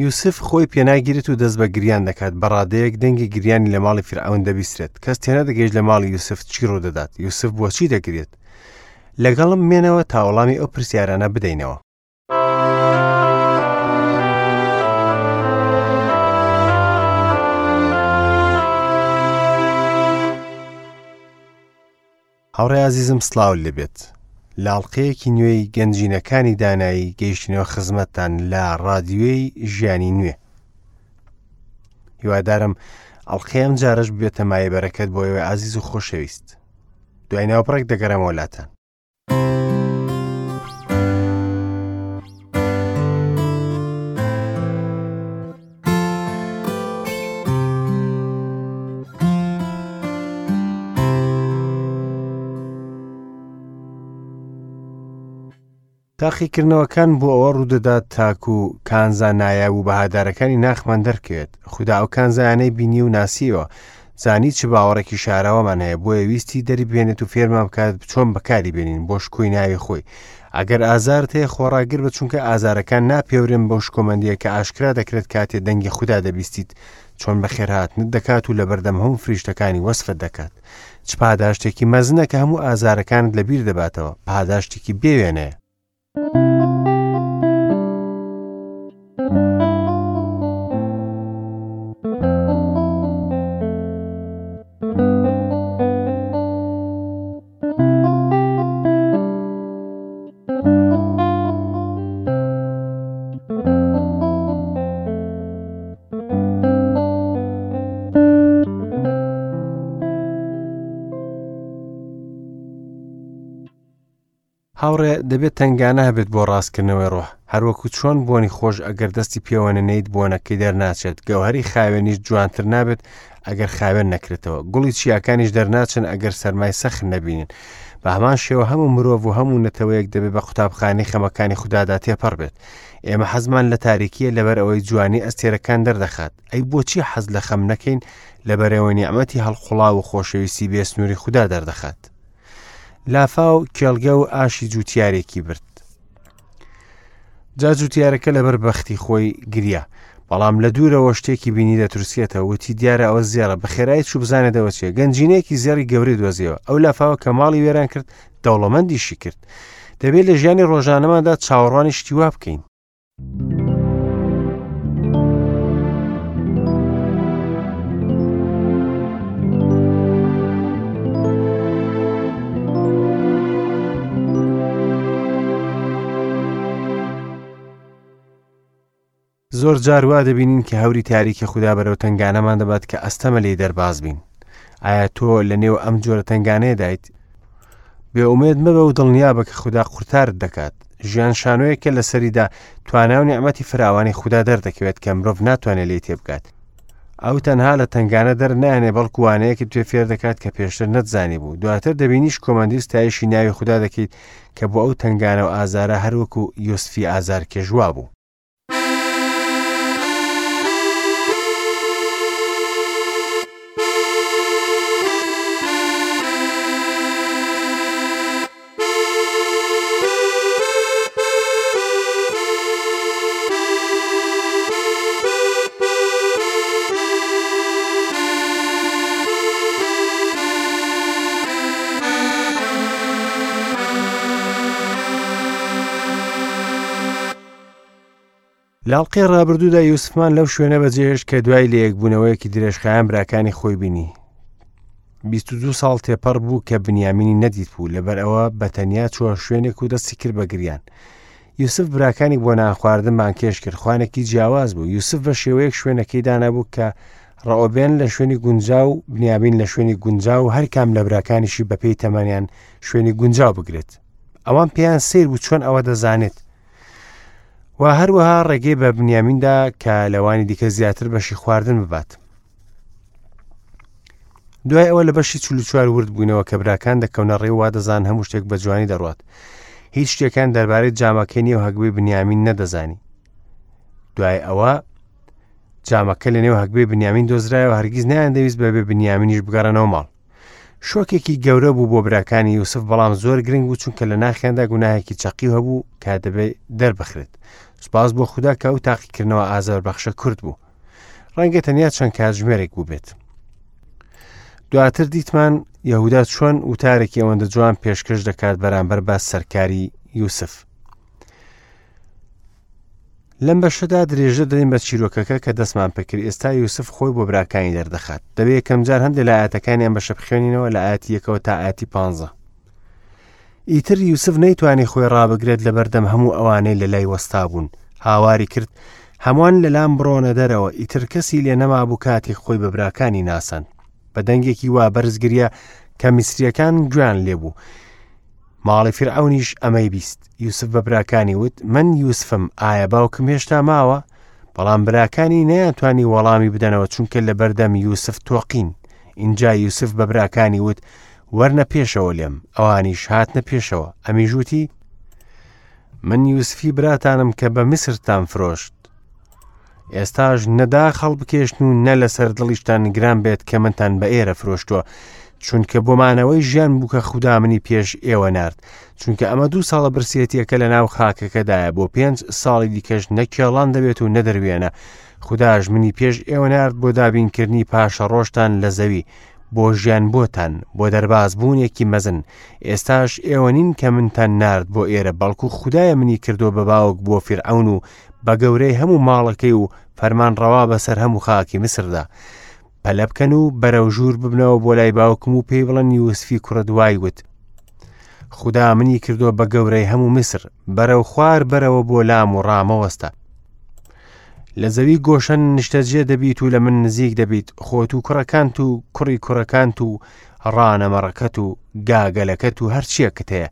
یوسف خۆی پێناگیرێت و دەست بە گریان دەکات، بە ڕادەیەک دەنگی گریانی لە ماڵی فیرعەون دەبیسترێت. کەس تێنەدەگەیشت لە ماڵی یوسف چی ڕوودەدات، یوسف بۆچی دەگریێت؟ لەگەڵم بمێنەوە تا وەڵامی ئەو پرسیارانە بدەینەوە. هاوڕێ ئازیزم سڵاوت لێبێت لە ئەڵقەیەکی نوێی گەنجینەکانی دانایی گەیشتینەوە خزمەتتان لە ڕادیۆی ژیانی نوێ هیوادارم ئەڵقەی ئەم جارەش ببێتە مایە بەرەکەت بۆ ئێوەی ئازیز و خۆشەویست دوای ناوبڕێک دەگەڕێمەوە لاتان تاقیکردنەوەکان بۆ ئەوە ڕوودەدات تاکو کانزا نایاب و بەهادارەکانی ناخمان دەرکەوێت خودا ئەو کانزایانەی بینی و ناسیەوە زانی چ باوەڕێکی شاراوەمان هەیە بۆیە ویستی دەریبهێنێت و فێرمان بکات چۆن بەکاری بێنین بۆ شکۆی ناوی خۆی ئەگەر ئازارت هەیە خۆڕاگر بە چونکە ئازارەکان ناپێورێن بەو شکۆمەندیە کە ئاشکرا دەکرێت کاتێ دەنگی خودا دەبیستیت چۆن بەخێرهاتنت دەکات و لەبەردەم هەموو فریشتەکانی وەسفت دەکات چ پاداشتێکی مەزنە کە هەموو ئازارەکانت لەبیر دەباتەوە پاداشتێکی بێوێنەیە. هاوڕێ دەبێت تەنگانە هەبێت بۆ ڕاستکردنەوەی ڕۆح هەروەکو چۆن بۆنی خۆش ئەگەر دەستی پێوە نەنێیت بۆنەکەی دەرناچێت گەوهەری خاوێنیش جوانتر نابێت ئەگەر خاوێن نەکرێتەوە گوڵی چیاکانیش دەرناچن ئەگەر سەرمای سەخت نەبینن بە هەمان شێوە هەموو مرۆڤ و هەموو نەتەوەیەک دەبێت بە قوتابخانەی خەمەکانی خودادا تێپەڕ بێت ئێمە حەزمان لە تاریکیە لەبەر ئەوەی جوانی ئەستێرەکان دەردەخات ئەی بۆچی حەز لە خەم نەکەین لەبەرەوەی نیعمەتی هەڵقوڵاو و خۆشەویستی بێسنووری خودا دەردەخات لافاو کێڵگە و ئاشی جووتیارێکی برد جا جوتیارەکە لەبەر بەختی خۆی گریا بەڵام لە دوورەوە شتێکی بینی دەترسێتەوە وتی دیارە ئەوە زێڕە بەخێرایی چوو بزانێتەوە چیە گەنجینەیەکی زێڕی گەورەی دۆزیەوە ئەو لافاوە کە ماڵی وێران کرد دەوڵەمەندیشی کرد دەبێت لە ژیانی ڕۆژانەماندا چاوەڕوانی شتی وا بکەین زۆر جار وا دەبینین کە هەوری تاریکی خودا بەرەو تەنگانەمان دەبات کە ئەستەمە لێی دەرباز بین. ئایا تۆ لە نێو ئەم جۆرە تەنگانەیەدایت؟ بێئومێد مەبە و دڵنیابە کە خودا قورتارت دەکات. ژیان شانۆیەکە لەسەریدا توانا و نیعمەتی فراوانی خودا دەردەکەوێت کە مرۆڤ ناتوانێت لێی تێبگات. ئەو تەنها لە تەنگانە دەرنایەنێ بەڵکو وانەیەکت پێ فێر دەکات کە پێشتر نەتزانی بوو. دواتر دەبینی شکۆمەندی و ستایشی ناوی خودا دەکەیت کە بۆ ئەو تەنگانە و ئازارە هەروەکو یوسفی ئازارکێش وابوو. لە ئەڵقەی ڕابردوودا یوسفمان لەو شوێنە بەجێهێشت کە دوای لەیەکبوونەوەیەکی درێژخایەن براکانی خۆی بینی. 22 ساڵ تێپەڕ بوو کە بنیامینی نەدیت بوو لەبەر ئەوە بە تەنیا چووە شوێنێک و دەستی کرد بە گریان. یوسف براکانی بۆ نان خواردن بانگهێشت کرد خوانێکی جیاواز بوو یوسف بە شێوەیەک شوێنەکەی دانابوو کە ڕەئۆبێن لە شوێنی گونجاو بنیامین لە شوێنی گونجاو و هەرکام لە براکانیشی بەپێی تەمەنیان شوێنی گونجاو بگرێت ئەوان پێیان سیر بوو چۆن ئەوە دەزانێت و هەروەها ڕێگەی بە بنیامیندا کە لەوانی دیکە زیاتر بەشی خواردن ببات دوای ئەوە لە بەشی 44 ورد بووینەوە کە براکان دەکەونە ڕێ وا دەزان هەموو شتێک بە جوانی دەڕات هیچ شتێکان دەربارەی جامەکەی نێو هەگبەی بنیامین نەدەزانی دوای ئەوە جامەکە لە نێو هەگبەی بنیامین دۆزرایەوە هەرگیز نیان دەویست بەبێ بنیامینیش بگەڕێنەوە ماڵ شۆکێکی گەورە بوو بۆ براکانی یوسف بەڵام زۆر گرنگ بوو چونکە لە ناخیاندا گوناهێکی چەقیو هەبوو کە دەبێت دەربخرێت. سوپاس بۆ خودا کە ئەو تاقیکردنەوە ئازاربەخشە کورت بوو. ڕەنگە تەنیا چەند کاتژمێرێک بووبێت. دواتر دیتمان یەهودا چۆن وتارێکی ئەوەندە جوان پێشکەش دەکات بەرامبەر بە سەرکاری یوسف. لەم بەشەدا درێژە دەدەین بە چیرۆکەکە کە دەستمان پێکرد ئێستا یوسف خۆی بۆ براکانی دەردەخات دەبێت یەکەمجار هەندێک لە ئاەتەکانی ئەم بەشە بخوێنینەوە لە ئاەتی یەکەوە تا ئاەتی پ. ئیتر یوسف نەیتوانی خۆی ڕابگرێت لە بەردەم هەموو ئەوانەی لە لای وەستا بوون هاواری کرد هەمووان لەلام بڕۆنە دەرەوە ئیتر کەسی لێ نەمابوو کاتێک خۆی بە براکانی ناساند بە دەنگێکی وا بەرز گریا کە میسریەکان گوێیان لێبوو ماڵی فیرعەونیش ئەمەی بیست. یوسف بە براکانی وت، من یوسفم، ئایا باوکم هێشتا ماوە؟ بەڵام براکانی نەیانتوانی وەڵامی بدەنەوە چونکە لەبەردەم یوسف تۆقین. ئینجا یوسف بە براکانی وت، وەرنە پێشەوە لێم. ئەوانیش هاتنە پێشەوە. ئەمیش وتی، من یوسفی براتانم کە بە میسرتان فرۆشت. ئێستاش نە داخ هەڵبکێشن و نە لەسەر دڵیشتان گران بێت کە منتان بە ئێرە فرۆشتووە چونکە بۆ مانەوەی ژیان بوو کە خودا منی پێش ئێوە نارد چونکە ئەمە دوو ساڵە برسێتیەکە لە ناو خاکەکەدایە بۆ پێنج ساڵی دیکەش نە کێڵان دەبێت و نە دەروێنە خوداش منی پێش ئێوە نارد بۆ دابینکردنی پاشە ڕۆژتان لە زەوی بۆ ژیان بۆتان بۆ دەرباز بوونێکی مەزن ئێستاش ئێوە نین کە منتان نارد بۆ ئێرە بەڵکو خودایە منی کردو بە باوک بۆ فیرعەون و بە گەورەی هەموو ماڵەکەی و فەرمانڕەوا بەسەر هەموو خاکی میسردا. پەلە بکەن و بەرەو ژوور ببنەوە بۆ لای باوکم و پێی بڵێن یوسفی کوڕت وای وت. خودا منی کردووە بە گەورەی هەموو میسر، بەرەو خوار بەرەوە بۆ لام و ڕامەوەستە. لە زەوی گۆشەن نیشتەجێ دەبیت و لە من نزیک دەبیت، خۆت و کوڕەکانت و کوڕی کوڕەکانت و ڕانە مەڕەکەت و گاگەلەکەت و هەرچیەکت هەیە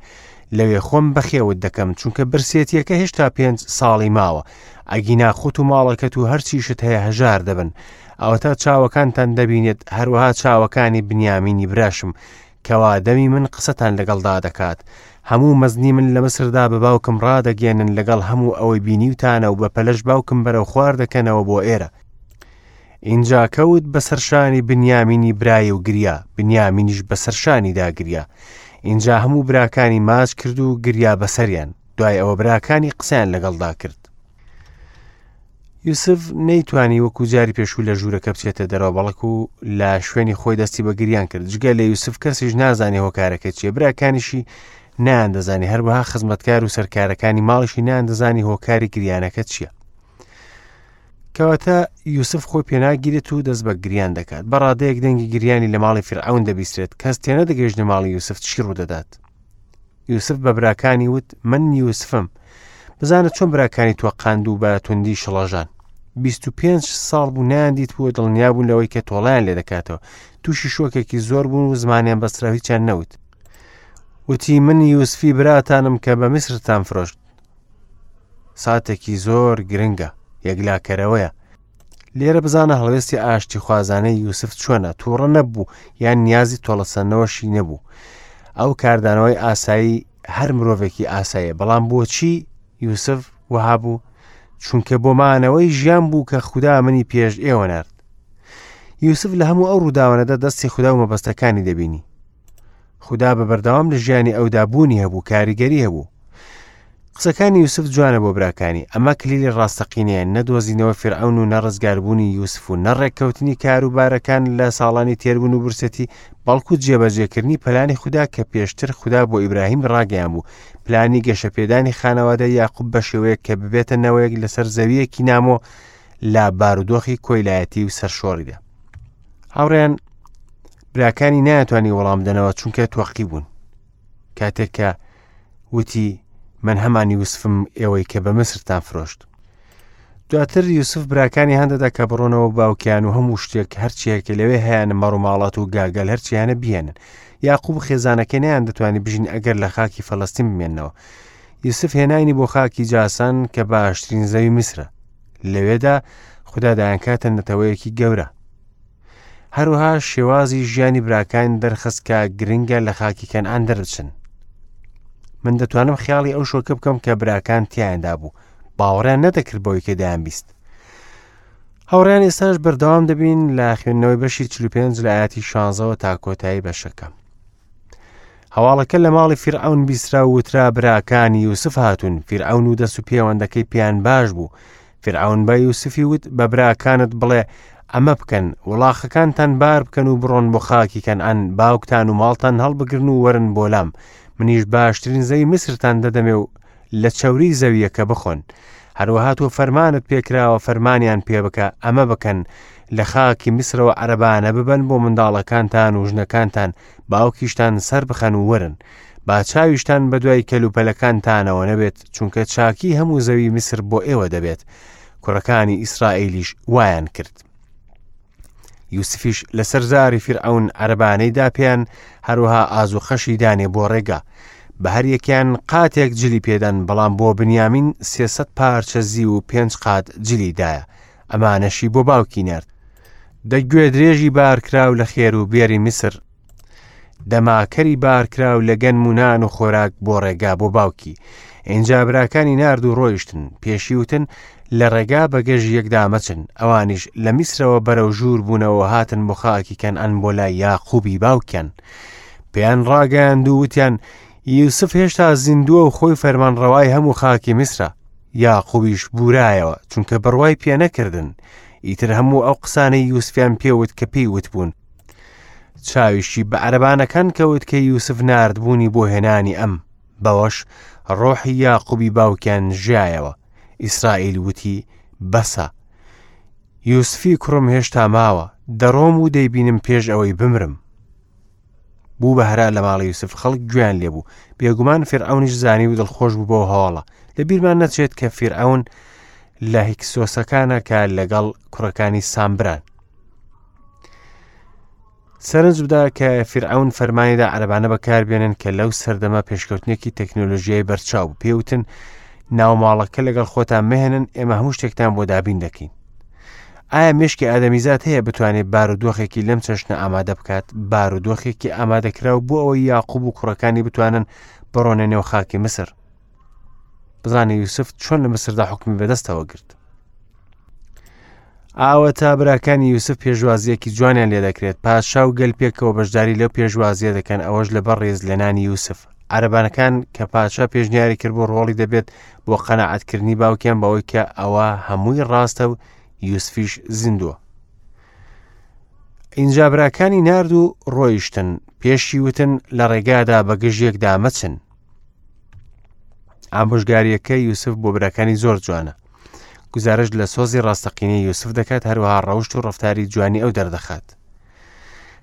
لەوێ خۆم بەخێوت دەکەم چونکە برسێتیەکە هێشتا پێنج ساڵی ماوە ئەگینا خۆت و ماڵەکەت و هەرچیشت هەیە هەژار دەبن ئەوەتا چاوەکانتان دەبینێت هەروەها چاوەکانی بنیامینی براشم کەوا دەمی من قسەتان لەگەڵدا دەکات هەموو مەزنی من لە مسردا بە باوکم ڕادەگەێنن لەگەڵ هەموو ئەوەی بینیوتانە و بە پەلەش باوکم بەرەو خوار دەکەنەوە بۆ ئێرە ئینجا کەوت بەسەر شانی بنیامینی برای و گریا، بنیامینیش بەسەر شانیدا گریا. ئینجا هەموو براکانی ماچ کرد و گریا بەسەریان. دوای ئەوە براکانی قسەیان لەگەڵدا کرد. یوسف نەیتوانی وەکو جاری پێشوو لە ژوورەکە بچێتە دەرەوە بەڵکو لە شوێنی خۆی دەستی بە گریان کرد جگە لە یوسف کەسیش نازانێ هۆکارەکە چیە براکانیشی نان دەزانی هەروەها خزمەتکار و سەرکارەکانی ماڵیشی نان دەزانی هۆکاری گریانەکە چییە کەواتە یوسف خۆی پێناگیرێت و دەست بە گریان دەکات بە ڕادەیەک دەنگی گریانی لە ماڵی فرعون دەبیسترێت کەس تێنەدەگەیشتە ماڵی یوسف چی ڕوودەدات یوسف بە براکانی وت من یوسفم بزانە چۆن براکانی تۆقاند و بە توندی شڵەژان 25 ساڵ بوو نەیان دیت بوو دڵنیا بوون لەوەی کە تۆڵیان لێ دەکاتەوە تووشی شۆکێکی زۆر بوون و زمانیان بەسترا هیچیان نەوت وتی من یوسفی براتانم کە بە میسرتان فرۆشت ساتێکی زۆر گرنگە یەکلاکەرەوەیە لێرە بزانە هەڵوێستی ئاشتی خوازانەی یوسف چۆنە تووڕە نەبوو یان نیازی تۆڵەسەندنەوەشی نەبوو ئەو کاردانەوەی ئاسایی هەر مرۆڤێکی ئاساییە بەڵام بۆچی یوسف وەها بوو چونکە بۆ مانەوەی ژیان بوو کە خودا منی پێش ئێوە نرد یوسف لە هەموو ئەو ڕووداوانەدا دەستی خودا و مەبەستەکانی دەبینی خودا بە بەردەوام لە ژیانی ئەودا بوونی هەبوو کاریگەری هەبوو قسەکانی یوسف جوانە بۆ براکانی ئەمە کلیلی ڕاستەقینەیە نە دۆزینەوە فیرعەون و نە ڕزگاربوونی یوسف و نە ڕێککەوتنی کاروبارەکان لە ساڵانی تێربوون و برسێتی بەڵکو جێبەجێکردنی پلانی خودا کە پێشتر خودا بۆ ئیبراهیم ڕاگەیان بوو پلانی گەشەپێدانی خانەوادە یاقوب بە شێوەیەک کە ببێتە نەوەیەک لەسەر زەویەکی نامۆ لە بارودۆخی کۆیلایەتی و سەرشۆڕیدا هاوڕێیان براکانی نایانتوانی وەڵام بدەنەوە چونکە تۆقی بوون کاتێک کە وتی من هەمان یوسفم ئێوەی کە بە مسرتان فرۆشت دواتر یوسف براکانی هەندەدا کە بڕۆنەوە باوکیان و هەموو شتێک هەرچیەکە لەوێ هەیەە مەڕوماڵات و گاگەل هەرچیانە بیێنن یاقوب خێزانەکەی نیان دەتوانانی بژین ئەگەر لە خاکی فەلەستین بمێنەوە یوسف هێنانی بۆ خاکی جاسان کە باشترین زەوی میسرە لەوێدا خودا دایانکاتە نەتەوەیەکی گەورە هەروەها شێوازی ژیانی براکان دەرخست کە گرنگە لە خاکی کەنعان دەربچن من دەتوانم خیاڵی ئەو شۆکە بکەم کە براکان تیایاندا بوو باوەڕیان نەدەکرد بەوەی کە دەیان بیست هاوڕیان ئێستاش بەردەوام دەبین لە خوێندنەوەی بەشی 45 لە ئاەتی 16ەوە تا کۆتایی بەشەکە. هەواڵەکە لە ماڵی فیرعەون بیسترا و وترا براکانی یوسف هاتوون، فیرعەون و دەست و پێوەندەکەی پێیان باش بوو. فیرعەون بە یوسفی وت، بە براکانت بڵێ ئەمە بکەن، وڵاخەکانتان بار بکەن و بڕۆن بۆ خاکی کەنعان، باوکتان و ماڵتان هەڵبگرن و وەرن بۆ لام، منیش باشترین زەوی میسرتان دەدەمێ و لە چەوری زەوییەکە بخۆن. هەروەها تۆ فەرمانت پێکراوە فەرمانیان پێ بکە ئەمە بکەن، لە خاکی میسرەوە عەرەبانە ببەن بۆ منداڵەکانتان و ژنەکانتان، باوکیشتان سەربخەن و وەرن. با چاویشتان بەدوای کەلوپەلەکانتانەوە نەبێت، چونکە چاکی هەموو زەوی میسر بۆ ئێوە دەبێت. کوڕەکانی ئیسرائیلیش وایان کرد. یوسفیش لەسەر زاری فیرعەون عەرەبانەی دا پێیان، هەروەها ئازوخەشی دانێ بۆ ڕێگا. بە هەر یەکیان قاتێک جلی پێدان، بەڵام بۆ بنیامین 300 پارچە زیو و پێنج قات جلی دایە. ئەمانەشی بۆ باوکی نارد. دە گوێدرێژی بارکراو لە خێر و بێری میسر، دەماکەری بارکراو لە گەنم و نان و خۆراک بۆ ڕێگا بۆ باوکی. ئینجا براکانی نارد و ڕۆیشتن، پێشی وتن، لە ڕێگا بە گەژی یەکدا مەچن. ئەوانیش لە میسرەوە بەرەو ژوور بوونەوە هاتن بۆ خاکی کەنعان بۆ لای یاقوبی باوکیان. پێیان ڕاگەیاند و وتیان، یوسف هێشتا زیندووە و خۆی فەرمانڕەوای هەموو خاکی میسرە. یاقوبیش بورایەوە، چونکە بڕوای پێ نەکردن. ئیتر هەموو ئەو قسانەی یوسفیان پێ وت کە پێی وتبوون. چاویشی بە عەرەبانەکان کەوت کە یوسف ناردبوونی بۆ هێنانی ئەم، بەوەش ڕۆحی یاقوبی باوکیان ژیایەوە. ئیسرائیل وتی، بەسە، یوسفی کوڕم هێشتا ماوە، دەڕۆم و دەیبینم پێش ئەوەی بمرم. بوو بە هەرا لە ماڵی یوسف، خەڵک گوێیان لێبوو. بێگومان فیرعەونیش زانی و دڵخۆش بوو بەو هەواڵە. لە بیرمان نەچێت کە فیرعەون لە هیکسۆسەکانە کە لەگەڵ کوڕەکانی سامبران. سەرنج بدە کە فیرعەون فەرمانیدا عەرەبانە بەکاربێنن کە لەو سەردەمە پێشکەوتنێکی تەکنۆلۆژیای بەرچاو بوو. پێوتن ناوماڵەکە لەگەڵ خۆتان مەهێنن، ئێمە هەموو شتێکتان بۆ دابین دەکەین. ئایا مێشکی ئادەمیزاد هەیە بتوانێت بارودۆخێکی لەم چەشنە ئامادە بکات؟ بارودۆخێکی ئامادەکراو بۆ ئەوەی یاقوب و کوڕەکانی بتوانن بڕۆنە نێو خاکی میسر. بزانە یوسف چۆن لە میسردا حکومی بەدەستەوە گرت. ئاوەتا براکانی یوسف پێشوازیەکی جوانیان لێ دەکرێت، پادشا و گەل پێکەوە بەشداری لەو پێشوازیە دەکەن، ئەوەش لەبەر ڕێزلێنانی یوسف. عەرەبانەکان کە پادشا پێشنیاری کرد بۆ ڕۆڵی دەبێت بۆ قەناعەتکردنی باوکیان بەوەی کە ئەوە هەمووی ڕاستە و یوسفیش زیندووە. ئینجا براکانی نارد و ڕۆیشتن، پێشی وتن لە ڕێگادا بە گژ یەکدا مەچن. ئامۆژگاریەکە یوسف بۆ براکانی زۆر جوانە. گوزارشت لە سۆزی ڕاستەقینەی یوسف دەکات، هەروەها ڕەوشت و ڕەفتاری جوانی ئەو دەردەخات.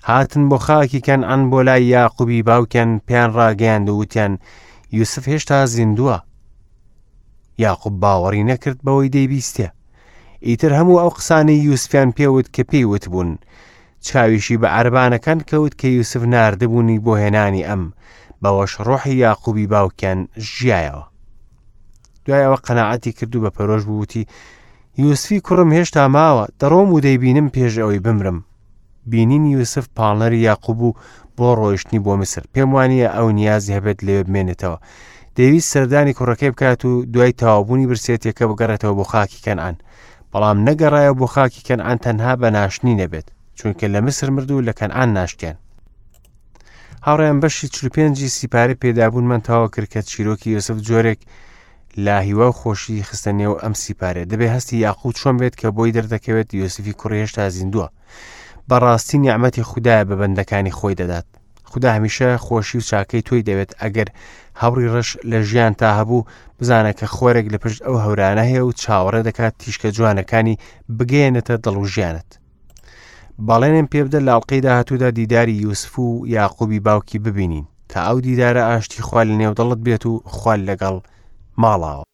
هاتن بۆ خاکی کەنعان بۆ لای یاقوبی باوکیان، پێیان ڕاگەیاند و وتیان یوسف هێشتا زیندووە. یاقوب باوەڕی نەکرد بەوەی دەیبیستێ. ئیتر هەموو ئەو قسانەی یوسفیان پێوت کە پێی وتبوون. چاویشی بە عەرەبانەکان کەوت کە یوسف ناردبوونی بۆ هێنانی ئەم، بەوەش ڕۆحی یاقوبی باوکیان ژیایەوە. دوای ئەوە قەناعەتی کرد و بە پەرۆش بوو وتی، یوسفی کوڕم هێشتا ماوە، دەڕۆم و دەیبینم پێش ئەوەی بمرم. بینینی یوسف پاڵنەری یاقوب بوو بۆ ڕۆیشتنی بۆ میسر. پێم وانییە ئەو نیازی هەبێت لەوێ بمێنێتەوە. دەیویست سەردانی کوڕەکەی بکات و دوای تەواوبوونی برسێتیەکە بگەڕێتەوە بۆ خاکی کەنعان. بەڵام نەگەڕایەوە بۆ خاکی کەنعان تەنها بە ناشتنی نەبێت، چونکە لە میسر مرد و لە کەنعان ناشتیان. هاوڕێیان بەشی 45 سیپارەی پێدابوونمان تەواو کرد کە چیرۆکی یوسف جۆرێک لە هیوا و خۆشی خستە نێو ئەم سیپارێ. دەبێ هەستی یاقوب چۆن بێت کە بۆی دەردەکەوێت یوسفی کوڕی هێشتا زیندووە. بەڕاستی نیعمەتی خودایە بە بەندەکانی خۆی دەدات. خودا هەمیشە خۆشی و چاکەی تۆی دەوێت. ئەگەر هەوری ڕەش لە ژیان تا هەبوو، بزانە کە خۆرێک لە پشت ئەو هەورانە هەیە و چاوەڕێ دەکات تیشکە جوانەکانی بگەیەنێتە دڵ و ژیانت. بەڵێنم پێ بدە لە ئەڵقەی داهاتوودا دیداری یوسف و یاقوبی باوکی ببینین. تا ئەو دیدارە ئاشتی خوا لە نێو دڵت بێت و خوا لەگەڵ ماڵاوە.